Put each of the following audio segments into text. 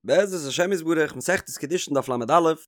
בעזרת השם יתברך, מסכת קידושין דף ל"א,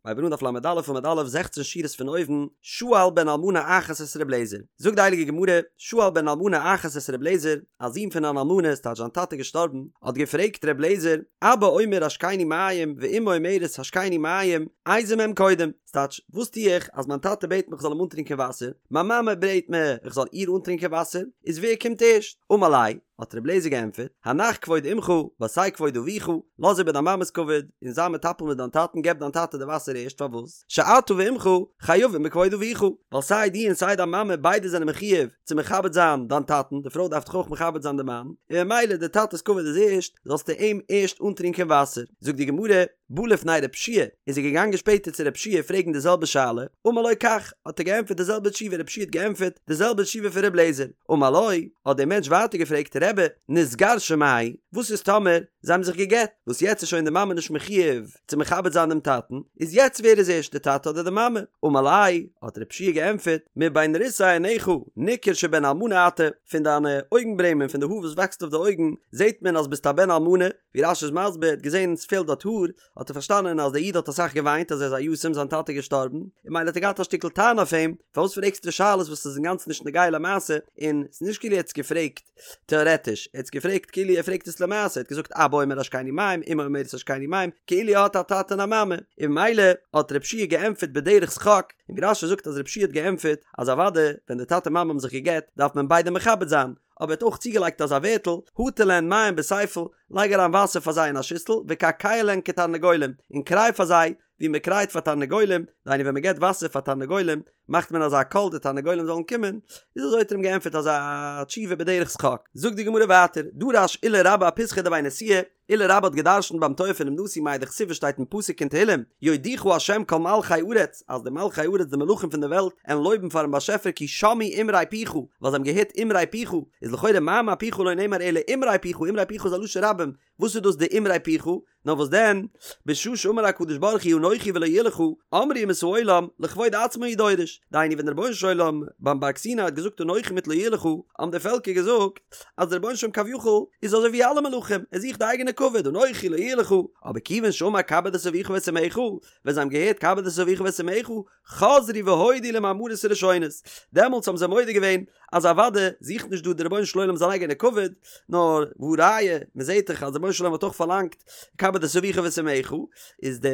מ'הייבט אן דף ל"א עמוד א', זעכצן שורות פון אויבן, שאל בן אלמנה אחת את ר' אליעזר, זאגט די הייליגע גמרא, שאל בן אלמנה אחת את ר' אליעזר, א זון פון אן אלמנה, ס'טייטש זיין טאטע געשטארבן, האט געפרעגט ר' אליעזר, אבא אומר השקני מים ואמו אומרת השקני מים, איזה מהם קודם, ס'טייטש, וואס טו איך אז מיין טאטע בעט מיך כ'זאל אים אנטרינקען וואסער, מיין מאמע בעט מיר איך זאל איר אנטרינקען וואסער, איז ווער קומט ערשט? אמר ליה, האט רבי אליעזר געענטפערט, הנח כבוד אמך, ועשה כבוד אביך, לאז איבער דיין מאמע'ס כבוד, און זיי מטפל מיט דיין טאטן, געב דיין טאטע די וואסער ערשט, פארוואס? שאתה ואמך חייבים בכבוד אביך, ווייל סיי דו און סיי דיין מאמע ביידע זענען מחויב צו מכבד זיין דיין טאטן, די פרוי דארף דאך אויך מכבד זיין די מאן, און ממילא די טאטע'ס כבוד איז ערשט, זאלסטו אים ערשט אנטרינקען וואסער. זאגט די גמרא, בא לפני רב שיע, איז ער געגאנגען שפעטער צו רב שיע פרעגן די זעלבע שאלה, אמר לו כך, האט ער געענטפערט די זעלבע תשובה, רב שיע האט געענטפערט די זעלבע תשובה פון ר' אליעזר, אמר לו, האט דער מענטש ווייטער געפרעגט, רבי, נתגרשה מהו, וואס איז טאמער זיי האבן זיך גע'גט, וואס יעצט איז שוין די מאמע נישט מחויב צו מכבד זיין דעם טאטן, איז יעצט ווער איז ערשט די טאטע אדער די מאמע? אמר ליה, האט רב שיע געענטפערט, מבין ריסי עיניך ניכר שבן אלמנה אתה, פון דיינע אויגן ברעמען, פון די האר וואס וואקסט אויף די אויגן, זעט מען אז ביסט א בן אלמנה, ווי רש"י איז מסביר, ער האט געזען עס פעלט דארט האר, האט ער פארשטאנען אז דער איד האט אסאך געוויינט אז ער איז א יתום זיין טאטע איז געשטארבן, און ממילא האט ער געהאט א שטיקל טענה אויף אים, פארוואס פרעגסטו שאלות וואס איז אינגאנצן נישט נוגע למעשה, און ס'איז נישט כאילו ער האט עס געפרעגט טעארעטיש, ער האט עס געפרעגט כאילו ער פרעגט עס למעשה, ער האט געזאגט אבא אומר השקני מים, אמו אומרת השקני מים, כאילו ער האט א טאטע און א מאמע, און ממילא האט רב שיע געענטפערט בדרך שחוק, און ווי רש"י זאגט אז רב שיע האט געענטפערט אז אוודאי ווען די טאטע מאמע האבן זיך געגט דארף מען ביידע מכבד זיין, אבער ער האט אויך צוגעלייגט אזא ווערטל, הטל להן מים בספל, לייג אריין וואסער פאר זיי אין א שיסל, וקעקע להן כתרנגולים, און קריי פאר זיי, ווי מען קרייט פאר תרנגולים, דהיינו ווען מען געבט וואסער פאר תרנגולים, מאכט מען אזא קול די תרנגולים זאלן קומען, איז אזוי האט ער אים געענטפערט אזא תשובה בדרך שחוק. זאגט די גמרא ווייטער, דרש עולא רבה אפיתחא דבי נשיאה, עולא רבה האט געדרשנט ביים טויער פונעם נשיא מאי דכתיב וואס שטייט אין פסוק אין תהילים, יודוך ה' כל מלכי ארץ, אז די מלכי ארץ די מלכים פון די וועלט עלן לויבן פארן באשעפער כי שמעו אמרי פיך, ווייל זיי האבן געהערט אמרי פיך, איז לכאורה מאמר פיך לא נאמר אלא אמרי פיך, אמרי פיך איז א לשון רבים, וואס איז דאס די אמרי פיך? נאר וואס דען, בשעה שאמר הקדוש ברוך הוא אנכי ולא יהיה לך, אמרו אומות העולם, לכבוד עצמו הוא דורש, דהיינו ווען דער רבונו של עולם ביים בארג סיני האט געזאגט אנכי מיט לא יהיה לך, האבן די פעלקער געזאגט, אז דער רבונו של עולם כביכול איז אזוי ווי אלע מלכים, ער זוכט די אייגענע כבוד, אנכי לא יהיה לך, אבער כיוון שאמר כבד את אביך ואת אמך, ווען זיי האבן געהערט כבד את אביך ואת אמך, חזרו והודו למאמרות הראשונות, דעמאלטס האבן זיי מודה געווען אז אוודאי זוכט נישט דא דער רבונו של עולם זיין אייגענע כבוד, נאר והא ראיה, מען זעט דאך אז דער רבונו של עולם האט אויך פארלאנגט כבד את אביך ואת אמך, איז די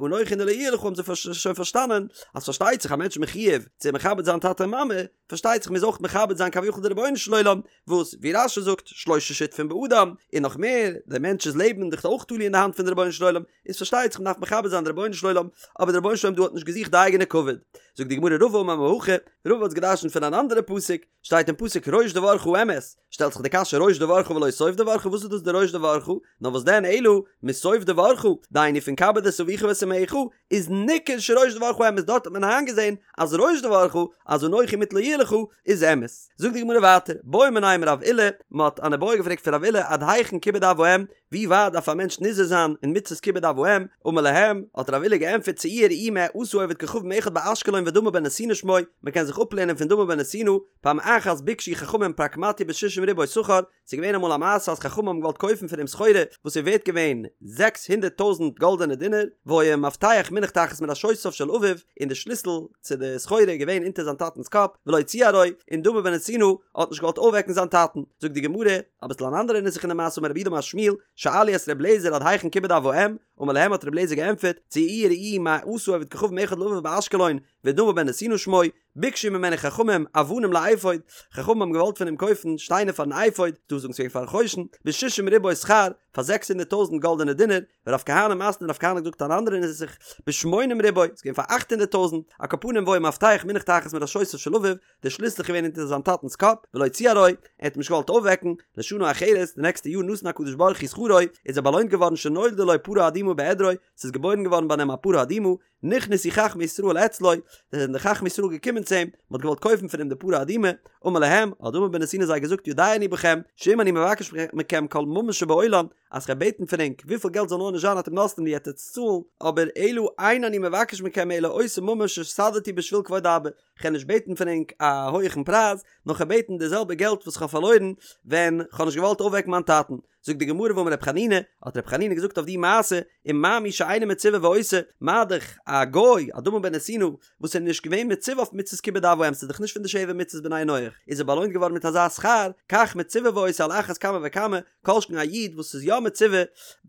אנכי און די לא יהיה לך האבן זיי שוין פארשטאנען אז פארשטייט זיך א מענטש איז מחויב צו מכבד זיין טאטע און מאמע, פארשטייט זיך מ'מוז אויך מכבד זיין כביכול די רבונו של עולם, וואס ווי רש"י זאגט שלשה שותפים באדם, און נאך מער, דער מענטש'ס לעבן איז דאך אויך תלוי אין די האנט פון די רבונו של עולם, איז פארשטייט זיך מ'דארף מכבד זיין די רבונו של עולם, אבער די רבונו של עולם דא האט נישט געזוכט די אייגענע כבוד. זאגט די גמרא רבא אמר מהכא, רבא האט געדרשנט פון אן אנדערע פסוק, שטייט אין פסוק ראש דברך אמת, שטעלט זיך די קשיא ראש דברך ולא סוף דברך וואס איז דאס די ראש דברך, נאר וואס דען אלא מסוף דברך, דהיינו פון כבד את אביך ואת אמך, איז ניכר שראש דברך אמת דארט האט מען איינגעזען אז ראש דברך אז אנכי מיט לא יהיה לך איז אמת. זאגט די גמרא ווייטער, בעו מיניה מרב עולא, מען האט אן איבעיא געפרעגט פון רב עולא עד היכן כיבוד אב ואם, ווי ווייט דארף א מענטש נזהר זיין אין מצות כיבוד אב ואם, אמר להם, האט רב עולא געענטפערט צאו וראו מה עשה עובד כוכבים אחד באשקלון ודמא בן נתינה שמו, מען קען זיך אפלערנען פון דמא בן נתינה, פעם אחת ביקשו חכמים פרקמטיא בשישים ריבוא שכר, ס'איז געווען אמאל א מעשה אז חכמים האבן געוואלט קויפן פון אים סחורה וואס איז ווערט געווען זעקס הונדערט טויזנט גאלדענע דינר, והיה מפתח מונח תחת מראשותיו של אביו, און די שליסל צו די סחורה איז געווען אונטער זיין טאטנ'ס קאפ, ולא ציערו, און דמא בן נתינה האט נישט געוואלט אויפוועקן זיין טאטן. זאגט די גמרא, אביסל אן אנדערע נוסח אין די מעשה אמר רב יהודה אמר שמואל, שאלו את ר' אליעזר עד היכן כיבוד אב ואם, אמר להם האט ר' אליעזר געענטפערט, צאו וראו מה עשה עובד כוכבים אחד לאביו באשקלון, ודמא בן נתינה שמו, ביקשו ממנו חכמים אבנים לאפוד, חכמים האבן געוואלט פון אים קויפן שטיינער פארן אפוד, דא זאגן ס'געווען פארן חושן, בשישים ריבוא שכר, פאר זעקס הונדערט טויזנט גאלדענע דינר, ורב כהנא מתני רב כהנא האט געזאגט אן אנדערע נוסח, בשמונים ריבוא, ס'איז געווען פאר 800 טויזנט, על כל פנים והיה מפתח מונח תחת מראשותיו של אביו, דער שליסל איז געווען אונטער זיין טאטנ'ס קאפ, ולא ציערו, ער האט אים נישט געוואלט אויפוועקן, לשנה אחרת, די נעקסטע יאר נתן הקדוש ברוך הוא שכרו, איז ער באלוינט געווארן שנולדה לו פרה אדומה בעדרו, ס'איז געבוירן געווארן ביי אים א פרה אדומה, נכנסו חכמי ישראל אצלו, זענען די חכמי ישראל געקומען צו אים, מען האט געוואלט קויפן פון אים די פרה אדומה, אמר להם, האט דמא בן נתינה זיי געזאגט יודע אני בכם, שאם אני מבקש מכם כל ממון שבעולם, אז כ'וועל בעטן פון ענק וויפיל געלט זאל נאר נישט זיין אתם נותנים לי עט עטס צאלן, אבער אלא אין אני מבקש מכם אלא אותו ממון שהפסדתי בשביל כבוד אבא, כ'וועל נישט בעטן פון ענק א הויעכן פרייז, נאר כ'וועל בעטן די זעלבע געלט וואס כ'האב פארלוירן ווען כ'האב נישט געוואלט אויפוועקן מיין טאטן. זאגט די גמרא ואמר רב חנינא, האט רב חנינא געזאגט אויף די מעשה, ומה מי שאינו מצווה ועושה, מה דאך א גוי, א דמא בן נתינה, וואס איז נישט געווען מצווה אויף מצות כיבוד אב ואם, ס'איז דאך נישט פון די שבע מצוות בני נח, איז ער באלוינט געווארן מיט אזא שכר, כך מצווה ועושה על אחת כמה וכמה, כל שכן א איד וואס איז יא מצווה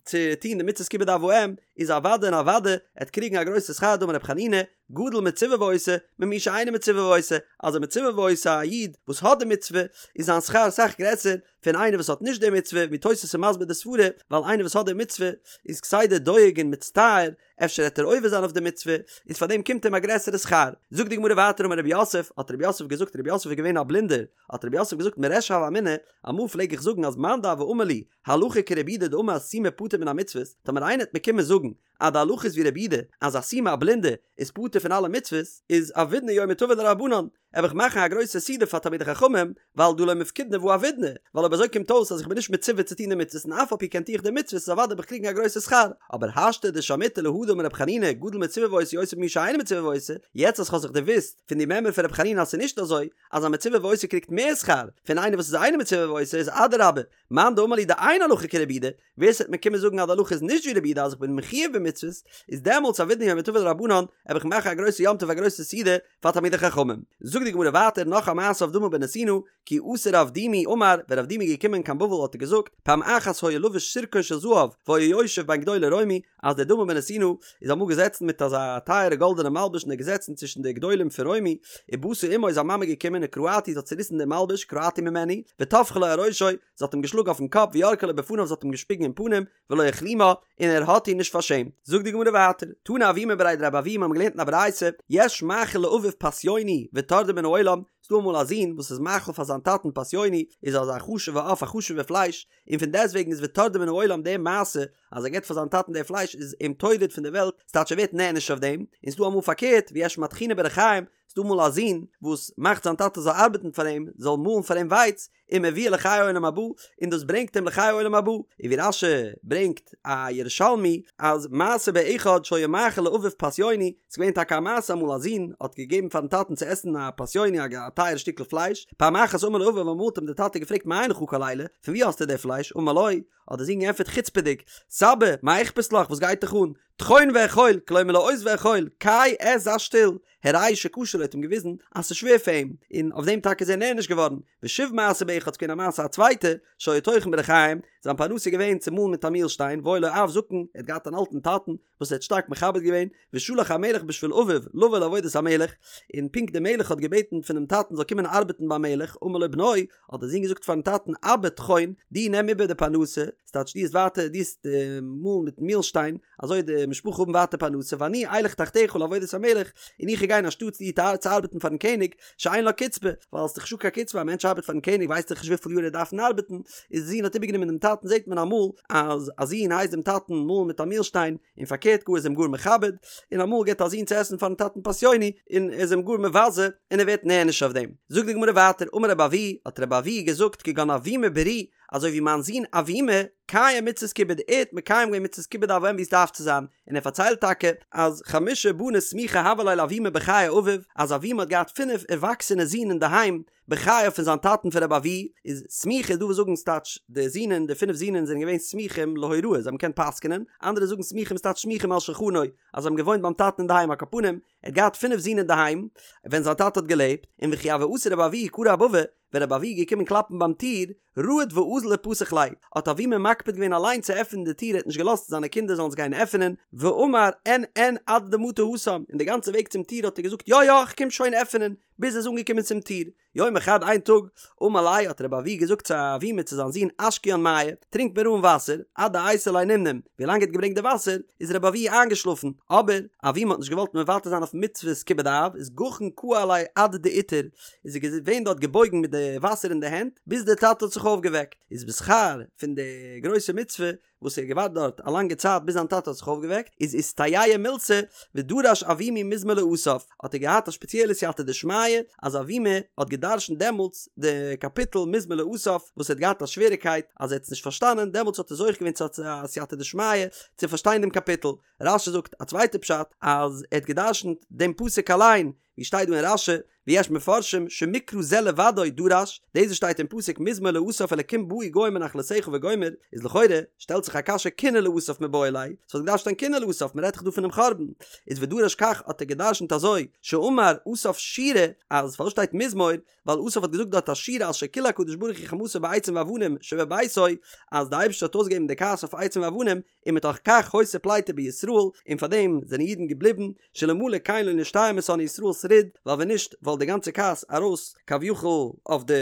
צו טון די מצות כיבוד אב ואם, איז אוודאי און אוודאי ער וועט קריגן א גרויסע שכר דאמר רב חנינא, גדול מצווה ועושה, ממי שאינו מצווה ועושה, אז א מצווה ועושה א איד וואס האט די מצוה, איז זיין שכר אסאך גרעסער פון איינער וואס האט נישט די מצוה, ווי תוס' איז מסביר די סברה, ווייל איינער וואס האט די מצוה איז כסדר דואג און מצטער, אפשר העט ער עובר זיין אויף די מצוה, איז פאר דעם קומט אים א גרעסערע שכר. זאגט די גמרא ווייטער אמר רב יוסף, האט רב יוסף געזאגט, רב יוסף איז געווען א בלינדער, האט רב יוסף געזאגט מריש הוה אמינא, אמאל פלעג איך זאגן אז מאן דהוה אמר לי, הלכה כרבי יהודה דאמר סומא פטור מן המצוות, טאמער איינער העט מיר קומען זאגן אז די הלכה איז ווי רבי יהודה אז א סומא א בלינדע איז פטור פון אלע מצוות, איז עבידנא יומא טבא לרבנן, וועל איך מאכן א גרויסע סעודה פאר תלמידי חכמים, ווייל דהא לא מפקידנא והא עבידנא, ווייל אויב אזוי קומט אויס אז איך בין נישט מצווה צו טון די מצוות און אף על פי כן טו איך די מצוות איז אוודאי וועל איך קריגן א גרויסע שכר, אבער השתא דשמעיתא להא דאמר רב חנינא גדול מצווה ועושה יותר ממי שאינו מצווה ועושה, יעצט אז כ'האב זיך דערוואוסט פון די מימרא פון רב חנינא אז ס'איז נישט אזוי אז א מצווה ועושה קריגט מער שכר פון איינער וואס איז אינו מצווה ועושה איז אדרבה מאן דאמר לי דאין הלכה כרבי יהודה, ווער ס'וועט מיר קומען זאגן אז די הלכה איז נישט ווי רבי יהודה אז איך בין מחויב במצוות, איז דעמאלטס עבידנא יומא טבא לרבנן, וועל איך מאכן א גרויסע יום טוב א גרויסע סעודה פאר תלמידי חכמים. זאגט די גמרא ווייטער נאך א מעשה אויף דמא בן נתינה, כי אתא רב דימי אמר, ווען רב דימי איז געקומען קיין בבל האט ער געזאגט, פעם אחת היה לבוש סירקון של זהב והיה יושב בין גדולי רומי, אז דער דמא בן נתינה איז אמאל געזעצן מיט אזא טייערע גאלדענע מלבוש און ער איז געזעצן צווישן די גדולים פון רומי, ובאתה אמו איז זיין מאמע געקומען וקרעתו זי האט צוריסן דעם מלבוש קרעתו ממנו, וטפחה לו על ראשו, זי האט אים געשלאגן אויפן קאפ וירקה לו בפניו זי האט אים געשפיגן אין פנים, ולא הכלימה, און ער האט איר נישט פארשעמט. זאגט די גמרא ווייטער, תנא אבימי בריה דרב אבוה מיר האבן געלערנט אין א ברייתא, יש מאכיל לאביו פסיוני וטורדו מן העולם, ס'דא אמאל א זון וואס איז מאכיל פאר זיין טאטן פסיוני, איז אזא חשוב'ע עוף א חשוב'ע פלייש, און פון דעסטוועגן איז וטורדו מן העולם די מעשה אז ער געבט פאר זיין טאטן די פלייש איז אים טורד פון די וועלט, ס'טייטש ער ווערט נענש אויף דעם, און ס'דא אמאל פארקערט, ויש מטחינו בריחים, ס'דא אמאל א זון וואס מאכט זיין טאטע זאל ארבעטן פאר אים, זאל מאלן פאר אים ווייץ, ומביאו לחיי עולם הבא, און דאס ברענגט אים לחיי עולם הבא, און ווי רש"י ברענגט א ירושלמי אז מעשה באחד שהיה מאכיל לאביו פסיוני, ס'איז געווען טאקע א מעשה אמאל א זון האט געגעבן פארן טאטן צו עסן א פסיוני א טייערע שטיקל פלייש, פעם אחת אמר לו אביו אמאל האט אים דער טאטע געפרעגט מאין לך כל אלה, פון וואו האסטו די פלייש, אמר לו, האט דער זון געענטפערט חוצפה'דיג, סבא, מה אכפת לך, וואס גייט דיך אן, טחון ואכול, כלומר לעוס ואכול, קיי עס זיי שטיל, הראהו שקשה לו האט אים געוויזן אז ס'איז שווער פאר אים, און אויף דעם טאקע איז ער נענש געווארן, ושוב מעשה באחד ס'געווען א מעשה א צווייטע, שהיה טוחן בריחים, זיין פרנסה איז געווען צו מאלן מיט א מילשטיין, והיה לו אב זקן, ער האט געהאט אן אלטן טאטן, וואס ער האט שטארק מכבד געווען, ושלח המלך בשביל אביו לבוא לעבודת המלך, און פונקט דער מלך האט געבעטן פונעם טאטן זאל קומען ארבעטן ביים מלך, אמר לו בנו, האט דער זון געזאגט פארן טאטן, אבא טחון, דו נעם איבער די פרנסה, ס'טייטש דו וועסט ווייטער, דו וועסט מאלן מיטן מילשטיין, אזוי די משפחה האבן ווייטער פרנסה, ואני אלך תחתיך לעבודת המלך, און איך וועל גיין אנשטאטס דיר צו ארבעטן פארן קעניג, שאין לה קצבה, ווייל ס'איז דאך נישטא קיין קצבה, א מענטש ארבעט פארן קעניג ווייסט דאך נישט וויפיל יאר ער דארף ארבעטן, איז די זון האט איבערגענומען דעם טאטן זעט מען אמאל אז א זון הייסט דעם טאטן מאלן מיט א מילשטיין, און פארקערט גאר איז אים גאר מכבד, און אמאל געבט א זון צו עסן פארן טאטן פסיוני, און ער איז אים גאר מבזה, און ער ווערט נענש אויף דעם. זאגט די גמרא ווייטער, אמר רבי אבהו, האט רבי אבהו געזאגט כגון אבימי ברי, אזוי ווי מיין זון אבימי, קיים מצות כיבוד, ער האט מקיים געווען מצות כיבוד אב ואם ווי עס דארף צו זיין, און ער פארציילט טאקע אז חמשה בני סמיכי הוו ליה לאבימי בחיי אביו, אז אבימי האט געהאט פינף ערוואקסענע זין אינדערהיים בחייו פון זיין טאטן פון רבי אבהו, איז סמיכי איז דא וואס זאגן ס'טייטש די זינען די פינף זינען זענען געווען סמוכים להוראה זיי האבן געקענט פסק'נען, אנדערע זאגן סמיכים ס'טייטש סמוכים על שולחנו אז זיי האבן געוואוינט ביים טאטן אינדערהיים על כל פנים, ער האט געהאט פינף זין אינדערהיים ווען זיין טאטע האט געלעבט, און וכי הוה אתי רבי אבהו קרי אבבא, ווען רבי אבהו איז געקומען קלאפן ביים טיר, רהט ואזיל ופתח ליה, האט אבימי מקפיד געווען אליין צו עפענען די טיר ער האט נישט געלאזט זיינע קינדער זאלן עס גיין עפענען, ואמר אין אין עד דמטא התם, און די גאנצע וועג צום טיר האט ער געזאגט יא יא איך קום שוין עפענען, ביז ער איז אנגעקומען צום טיר. יומא חד איין טאג, אמר ליה האט רבי אבהו געזאגט צו אבימי צו זיין זון אשקיין מיא, טרינק מיר אן וואסער, עד דאייתי ליה נמנם, ווי לאנג ער האט געברענגט די וואסער, איז רבי אבהו איינגעשלאפן, אבער אבימי האט נישט געוואלט מוותר זיין אויף מצוות כיבוד אב, איז גחין קאי עליה עד דאיתער, איז ער געווען דארט געבויגן מיט די וואסער אין די הענט, ביז דער טאטע האט זיך אויפגעוועקט, איז בשכר פון די גרויסע מצוה וואס ער האט געווארט דארט א לאנגע צייט ביז זיין טאטע האט זיך אויפגעוועקט, איז איסתייע מילתא ודרש אבימי מזמור לאסף, האט ער געהאט א שפעציעלע סייעתא דשמיא אז אבימי האט געדרשנט דעמאלטס די קאפיטל מזמור לאסף וואס ער האט געהאט א שוועריקייט אז ער האט עס נישט פארשטאנען, דעמאלטס האט ער זוכה געווען צו א סייעתא דשמיא צו פארשטיין דעם קאפיטל. רש"י זאגט א צווייטע פשט אז ער האט געדרשנט דעם פסוק אליין, ווי שטייט דא אין רש"י, ויש מפרשים שמקרא זה לבדו דרש, דאס וואס שטייט אין פסוק מזמור לאסף אלקים באו גוים בנחלתך וגומר, איז לכאורה שטעלט זיך א קשיא קינה לאסף מיבעי ליה, ס'וואלט געדארפט שטיין קינה לאסף, מ'רעדט דאך דא פונעם חורבן, איז ודרש כך האט ער געדרשנט אזוי, שאמר אסף שירה, אז פארוואס שטייט מזמור, ווייל אסף האט געזאגט דארט א שירה על שכילה הקדוש ברוך הוא חמתו בעצים ואבנים שבביתו, אז די אייבערשטער האט אויסגעגעבן די כעס אויף עצים ואבנים, ומתוך כך היתה פליטה בישראל, און פאר דעם זענען אידן געבליבן, שאלמלא כן לא נשתייר משונאי ישראל שריד, ווייל ווען נישט וואלט די גאנצע כעס ארויס כביכול אויף די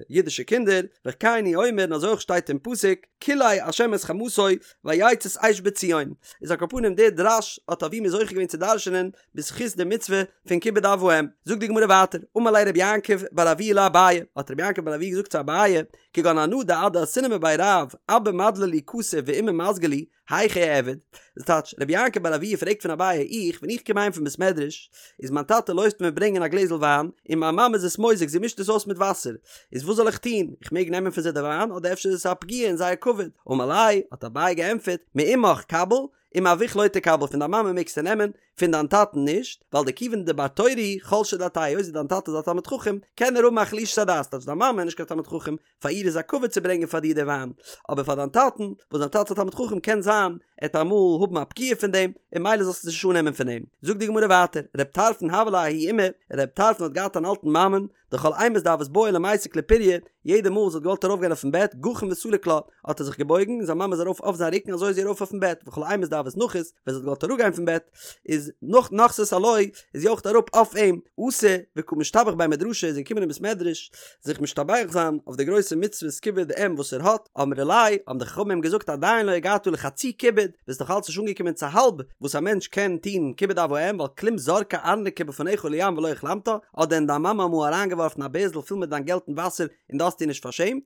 אידישע קינדער, וכן הוא אומר און אזוי אויך שטייט אין פסוק, כלה השם את חמתו ויצת אש בציון, איז על כל פנים דער דרש האט אבימי זוכה געווען צו דרש'נען בזכות די מצוה פון כיבוד אב ואם. זאגט די גמרא ווייטער, אמר ליה רבי יעקב בר אבויה לאביי, האט רבי יעקב בר אבויה געזאגט צו אביי, כגון אנא דעד דאתינא מבי רב, אבא מדלי לי כסא ואימא מזגה לי, היכי אעביד? דאס טייטש, רבי יעקב בר אבויה פרעגט פון אביי, איך, ווען איך קום אהיים פון בית מדרש, איז מיין טאטע לויפט מיר ברענגען א גלעזל וויין, און מיין מאמע איז עס מוזג, זי מישט עס אויס מיט וואסער, איז וואס זאל איך טון? איך מעג נעמען פון זיי די וויין, אדער אפשר איז עס א פגיעה אין זייער כבוד? אמר ליה, האט אביי געענטפערט, מאמך קביל, ומאבוך לא תקבל פון דיין מאמע מעגסטו נעמען, פון דיין טאטן נישט, ווייל דכיון דבר תורה הוא חלשה דעתיה היות דיין טאטע איז א תלמיד חכם, קען ער האבן א חלישת הדעת, טייטש דיין מאמע איז נישט קיין תלמיד חכם, פאר איר איז א כבוד צו ברענגען פאר דיר די וויין, אבער פאר דיין טאטן, וואס דיין טאטע איז א תלמיד חכם קען זיין ער וועט אמאל האבן א פגיעה פון דעם, און ממילא זאלסטו עס נישט אננעמען פון אים. זאגט די גמרא ווייטער, רב טרפון הוה ליה ההיא אימא, רב טרפון האט געהאט אן אלטן מאמען, דכל אימת דהוות בעיא למיסק לפוריא, יעדע מאל זי האט געוואלט ארויפגיין אויפן בעט, גחין וסליק לה, האט ער זיך געבויגן, און זיין מאמע איז ארויף אויף זיין רוקן אזוי איז זי ארויף אויפן בעט, וכל אימת דהוות נחית, ווען זי האט געוואלט אראפגיין פון בעט, איז נח נחתת עילויה, איז זי אויך אראפ אויף אים, אתא וקא משתבח בי מדרשא איז ער געקומען אין בית מדרש זיך משתבח זיין אויף די גרויסע מצוות כיבוד אם וואס ער האט, אמרי ליה, האבן די חכמים אים געזאגט עדיין לא הגעת לחצי כיבוד, ביסט נאך אלץ נישט אנגעקומען צו האלב וואס א מענטש קען טון כיבוד אב ואם, ווייל כלום זרקה ארנקי בפניך לים ולא הכלמתה, האט דען דיין מאמע אמאל אריינגעווארפן א בערזל פול מיט דיין געלט אין וואסער און דו האסט איר נישט פארשעמט?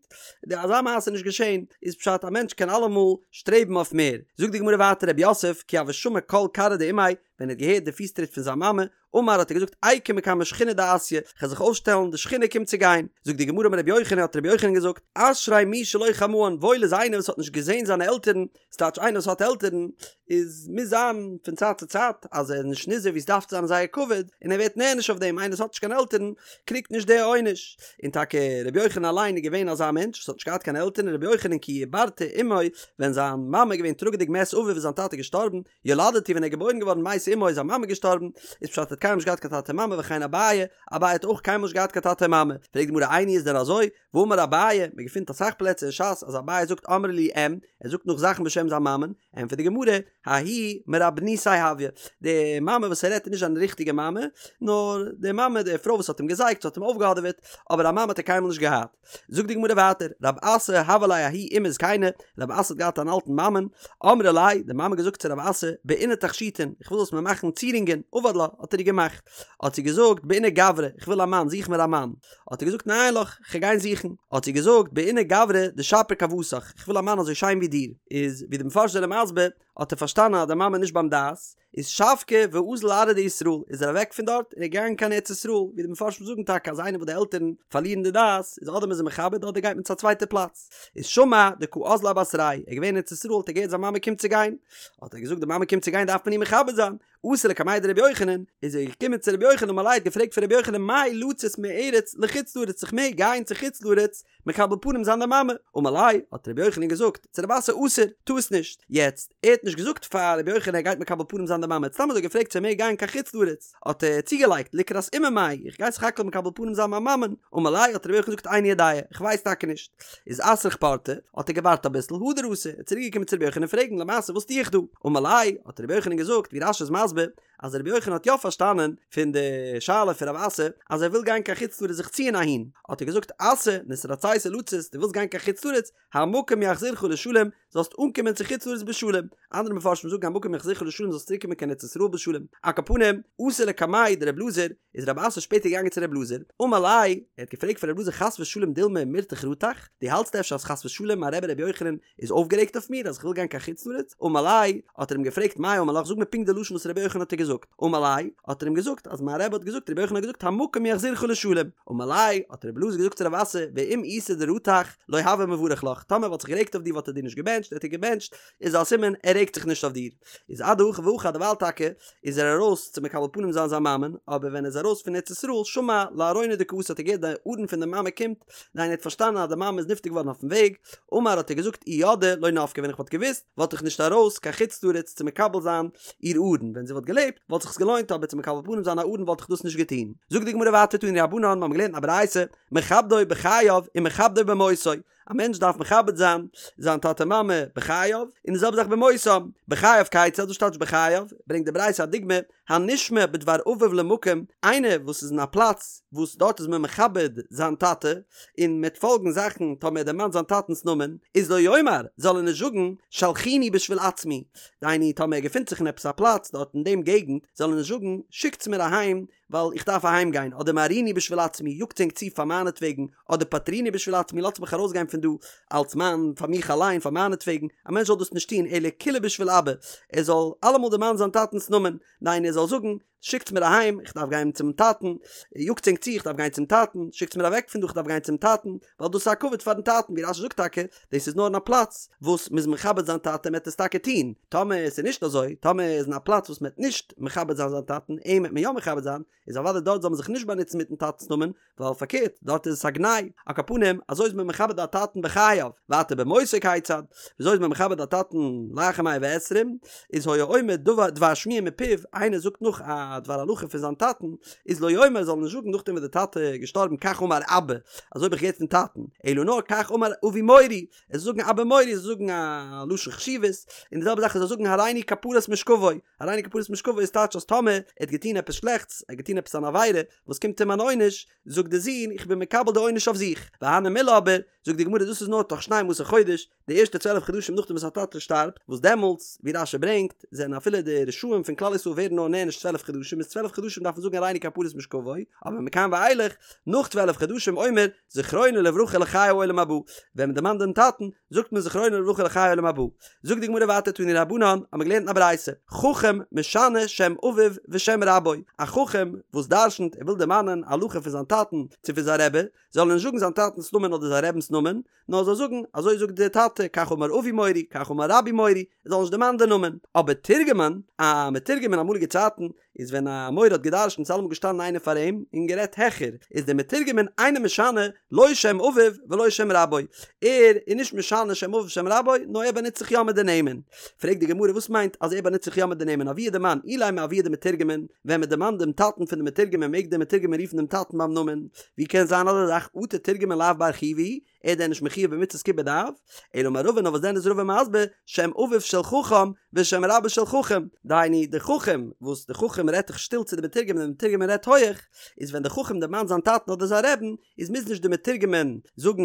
די אזא מעשה איז נישט געשען, איז פשט א מענטש קען אלעמאל שטרעבן אויף מער. זאגט די גמרא ווייטער רב יוסף כי הוה שמע קול כרעא דאימיה, ווען ער האט געהערט די פיס טריט פון זיין מאמע, אמר האט ער געזאגט איקום מקמי שכינה דאתיא, כ'וועל זיך אויפשטעלן, די שכינה קומט צו גיין. זאגט די גמרא אמר רבי יוחנן האט רבי יוחנן געזאגט, אשרי מי שלא חמאן, וואויל איז איינער וואס האט נישט געזען זיינע עלטערן, ס'טייטש איינער וואס האט עלטערן, איז מוז זיין פון צייט צו צייט אז ער איז נישט נזהר ווי ס'דארף צו זיין אין זייער כבוד, און ער ווערט נענש אויף דעם, איינער וואס האט נישט קיין עלטערן קריגט נישט די עונש. און טאקע רבי יוחנן אליין איז געווען אזא מענטש וואס האט נישט געהאט קיין עלטערן, רבי יוחנן כי עיברתו אמו, ווען זיין מאמע איז געווען טראגעדיג מת אביו איז זיין טאטע געשטארבן, ילדתו ווען ער איז געבוירן געווארן מתה אמו איז זיין מאמע געשטארבן, איז פשט ער האט קיינמאל נישט געהאט קיין טאטע מאמע וכן אביי, אביי האט אויך קיינמאל נישט געהאט קיין טאטע מאמע, פרעגט די גמרא איני איז דען אזוי? והאמר אביי, מען געפינט אסאך פלעצער אין ש"ס אז אביי זאגט אמרה לי אם, ער זאגט נאך זאכן בשם זיין מאמען, ענטפערט די גמרא, ההיא מרבינתיה הויא, די מאמע וואס ער רעדט איז נישט זיין ריכטיגע מאמע, נאר די מאמע די פרוי וואס האט אים געזייגט, האט אים אויפגעהאדעוועט, אבער א מאמע האט ער קיינמאל נישט געהאט. זאגט די גמרא ווייטער, רב אסי הוה ליה ההיא אימא זקינה, רב אסי האט געהאט אן אלטן מאמען, אמרה ליה, די מאמע געזאגט צו רב אסי, בעינא תכשיטין, איך וויל זאלסט מיר מאכן צירונגען, עבד לה, האט ער איר געמאכט, האט זי געזאגט, בעינא גברא, איך וויל א מאן, זוך מיר א מאן, האט ער געזאגט, ניין לך, כ'גיי גיין זוכן, האט זי געזאגט, בעינא גברא דשפיר כוותך, איך וויל א מאן אזוי שיין ווי דיר, איז ווי די מפרשים זענען מסביר, האט ער פארשטאנען אז די מאמע איז נישט ביים דעת, איז שבקה ואזל לארעא דישראל, איז ער אוועק פון דארט און איז געגאנגען קיין ארץ ישראל, ווי די מפרשים זאגן טאקע אז איינער וואס די עלטערן פארלירן די דעת, איז אדער מען איז אים מכבד אדער גייט מען צו א צווייטע פלאץ. איז שמע דקא אזלה אבתריה, ער איז געווען אין ארץ ישראל האט ער געהערט זיין מאמע קומט צו גיין, האט ער געזאגט די מאמע קומט צו גיין דארף מען איר מכבד זיין, אתא לקמיה דרבי יוחנן, איז ער געקומען צו רבי יוחנן אמר ליה האט געפרעגט פון רבי יוחנן מהו לצאת מארץ לחוץ לארץ איך מעג גיין צו חוץ לארץ מקבל פנים זיין די מאמע, אמר ליה, האט רבי יוחנן געזאגט צו רב אסי אסור, טו עס נישט, יעצט, ער האט נישט. נישט געזאגט פאר רבי יוחנן ער גייט מקבל פנים זיין די מאמע, ער האט סתם אזוי געפרעגט צו ער מעג גיין קיין חוץ לארץ, האט ער צוגעלייגט לקראת אימא מאי, איך גיי סך הכל מקבל פנים זיין מיין מאמען, אמר ליה האט רבי יוחנן געזאגט איני יודע, איך ווייס טאקע נישט. איז אתרח פורתא, האט ער געווארט אביסל, הדר אתא, ער איז צוריק געקומען צו רבי יוחנן פרעגן למעשה וואס טו איך דא? אמר ליה, האט רבי יוחנן געזאגט, ווי רש"י איז מסביר, אז רבי יוחנן האט יא פארשטאנען פון די שאלה פון רב אסי אז ער וויל גיין קיין חוץ לארץ זיך ציען אהין, האט ער געזאגט אסי, נתרצית לצאת, דו ווילסט גיין קיין חוץ לארץ, המקום יחזירך לשלום, זאלסט אנקומען צו חוץ לארץ בשלום, אנדערע מפרשים זאגן המקום יחזירך לשלום זאלסט צוריק קומען קיין ארץ ישראל בשלום, על כל פנים, אתא לקמיה דר' אלעזר, איז רב אסי שפעטער געגאנגען צו ר' אלעזר, אמר ליה, ער האט געפרעגט פון ר' אלעזר חס ושלום דילמא מירתח רתח, דו האלטסט אפשר אז חס ושלום מיין רבי רבי יוחנן איז אויפגערעגט אויף מיר אז איך וויל גיין קיין חוץ לארץ? אמר ליה, האט ער אים געפרעגט מאי אמר לך זאג מיר פונקט די לשון וואס רבי יוחנן האט דיר געזאגט, אמר ליה, האט ער אים געזאגט אז מיין רבי האט געזאגט רבי יוחנן האט געזאגט המקום יחזירך לשלום, אמר ליה, האט רבי אלעזר געזאגט צו רב אסי, ואם איתא דרתח, לא הוה מברך לך, טאמער ער וואלט זיך גערעגט אויף דיר וואלט ער דיר נישט געבענטשט, ער האט דיר געבענטשט, איז א סימן ער רעגט זיך נישט אויף דיר. איז אדהכי והכי דערווייל טאקע איז ער ארויס צו מקבל פנים זיין זיין מאמען, אבער ווען ער איז ארויס פון ארץ ישראל שמע לארונא דקאתי האט ער געהערט די ארון פון די מאמע קומט, דהיינו ער האט פארשטאנען אז די מאמע איז נפטר געווארן אויפן וועג, אמר האט ער געזאגט אי ידעי לא נפקי ווען איך וואלט געוואוסט וואלט איך נישט ארויס קיין חוץ לארץ צו מקבל זיין איר ארון, ווען זי וואלט געלעבט וואלט זיך עס געלוינט אבער צו מקבל פנים זיין א ארון וואלט איך דאס נישט געטון. זאגט די גמרא ווייטער תנו רבנן מיר האבן געלערנט א ברייתא מכבדו בחייו ומכבדו במותו, א מענטש דארף מכבד זיין זיין טאטע מאמע בחייו, און די זעלבע זאך במותם, בחייו כיצד, וואס טייטש בחייו? ברענגט די ברייתא א דוגמא, הנשמע בדבר אביו למקום, איינער וואס איז אין א פלאץ וואס דארט איז מען מכבד זיין טאטע, און מ'עט פאלגן זאכן טאמער ער דערמאנט זיין טאטנ'ס נאמען, איז לא יאמר, זאל ער נישט זאגן, שלחוני בשביל עצמי, דהיינו טאמער ער געפינט זיך אין עפעס א פלאץ דארט אין דעם געגנט, זאל ער נישט זאגן, שיקטס מיר אהיים, ווייל איך דארף אהיים גיין, אדער מהרוני בשביל עצמי, יאגטס ענק צו פאר מיינעטוועגן, אדער פטרוני בשביל עצמי, לאזטס מיך ארויסגיין פון דא, אלס מיין, פאר מיך אליין, פאר מיינעטוועגן, א מענטש זאל דאס נישט טון, אלא כולהו בשביל אבא, ער זאל אלעמאל דערמאנען זיין טאטנ'ס נאמען, דהיינו ער זאל זאגן, שיקטס מיר אהיים, איך דארף גיין צום טאטן, יאגטס ענק צו, איך דארף גיין צום טאטן, שיקטס מיר אוועק פון דא, איך דארף גיין צום טאטן, ווייל דאס איז א כבוד פארן טאטן, ווי רש"י זאגט טאקע, דאס איז נאר אין א פלאץ וואס מ'איז מכבד זיין טאטע מ'עט עס טאקע טון, טאמער עס איז נישט אזוי, טאמער איז אין א פלאץ וואס מ'עט נישט מכבד זיין זיין טאטן, אים עט מען יא מכבד זיין, איז אוודאי דארט זאל מען זיך נישט באנוצן מיטן טאטנ'ס נאמען, ווייל פארקערט, דארט איז עס א גנאי, על כל פנים, אזוי איז מען מכבד א טאטן בחייו, ווייטער במותו כיצד, וויאזוי איז מען מכבד א טאטן לאחר מאה ועשרים, איז היה אומר דבר דבר שמועה מפיו, איינער זאגט נאך א דבר הלכה פון זיין טאטן, איז לא יאמר זאל ער נישט זאגן נאכדעם וואס די טאטע איז געשטארבן כך אמר אבא, אזוי האב איך געהערט פון טאטן, אלא נאר כך אמר אבי מורי, ער זאל זאגן אבא מורי, ער זאל זאגן א לשון חשיבות, און די זעלבע זאך ער זאל זאגן הריני כפרת משכבו, הריני כפרת משכבו איז טייטש אז טאמער ער האט געטון עפעס שלעכטס, ער האט געטון עפעס אן עבירה וואס קומט אים אן עונש, זאגט די זון איך בין מקבל די עונש אויף זיך, והני מילי אבער, זאגט די גמרא דאס איז נאר תוך שנים עשר חודש, די ערשטע צוועלף חדשים נאכדעם וואס א טאטע שטארבט, וואס דעמאלטס, ווי רש"י ברענגט, זענען אפילו די רשעים פון כלל ישראל ווערן נאר נענש צוועלף חדשים, איז צוועלף חדשים דארף מען זאגן הריני כפרת משכבו, אבער מכאן ואילך, נאך צוועלף חדשים אומר זכרונו לברכה לחיי העולם הבא, ווען מען דערמאנט דעם טאטן, זאגט מען זכרונו לברכה לחיי העולם הבא. זאגט די גמרא ווייטער תנו רבנן, האבן מיר געלערנט אין א ברייתא, חכם משנה שם אביו ושם רבו, א חכם וואס דרשנ'ט, ער וויל דערמאנען א הלכה פון זיין טאטן צו פון זיין רבי, זאל ער נישט זאגן זיין טאטנ'ס נאמען אדער זיין רבינ'ס נאמען, נאר זאל זאגן, אזוי זאגט דער טאטע, כך אמר אבי מורי, כך אמר רבי מורי, ער זאל נישט דערמאנען די נאמען. אבער תורגמן, א מתורגמן אין אמאליגע צייטן, איז ווען א מורה האט גע'דרש'נט איז אלעמאל געשטאנען איינער פאר אים און גערעדט העכער, איז דער מתורגמן אינו משנה לא שם אביו ולא שם רבו, ער איז נישט משנה שם אביו שם רבו, נאר ער באנוצט זיך יא מיט די נעמען. פרעגט די גמרא וואס מיינט אז ער באנוצט זיך יא מיט די נעמען אבוה דמאן אילימא אבוה דמתורגמן, ווען מען דערמאנט דעם טאטן פון די מתורגמן מעג דער מתורגמן רופן דעם טאטן ביים נאמען, ווי קען זיין אזא זאך אטו תורגמן לאו בר חיובא הוא, ער איז דען נישט מחויב במצות כיבוד אב? אלא אמר רבא נאר וואס דען איז רבא מסביר שם אביו של חכם ושם רבו של חכם, דהיינו די חכם וואס די חכם רעדט דאך שטיל צו די מתורגמן און די מתורגמן רעדט הויעך, איז ווען די חכם דערמאנט זיין טאטן אדער זיין רעבן איז מוז נישט די מתורגמן זאגן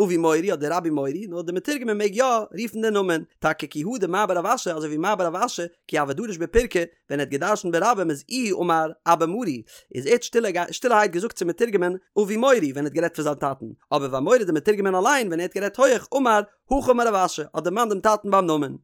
אבי מורי אדער רבי מורי נאר די מתורגמן מעג יא רופן די נאמען, טאקע כי הא דמר בר רב אשי אזוי ווי מר בר רב אשי כי הוה דריש בפירקא ווען ער האט געדרשנט ברבים איז איהו אמר אבא מרי איז ער האט שטילערהייט געזאגט צום מתורגמן אבי מורי ווען ער האט גערעדט פון זיין טאטן, אבער ואמוריה די מתורגמן אליין ווען ער האט גערעדט הויעך אמר הכי אמר רב אשי האט דערמאנט דעם טאטן ביים נאמען.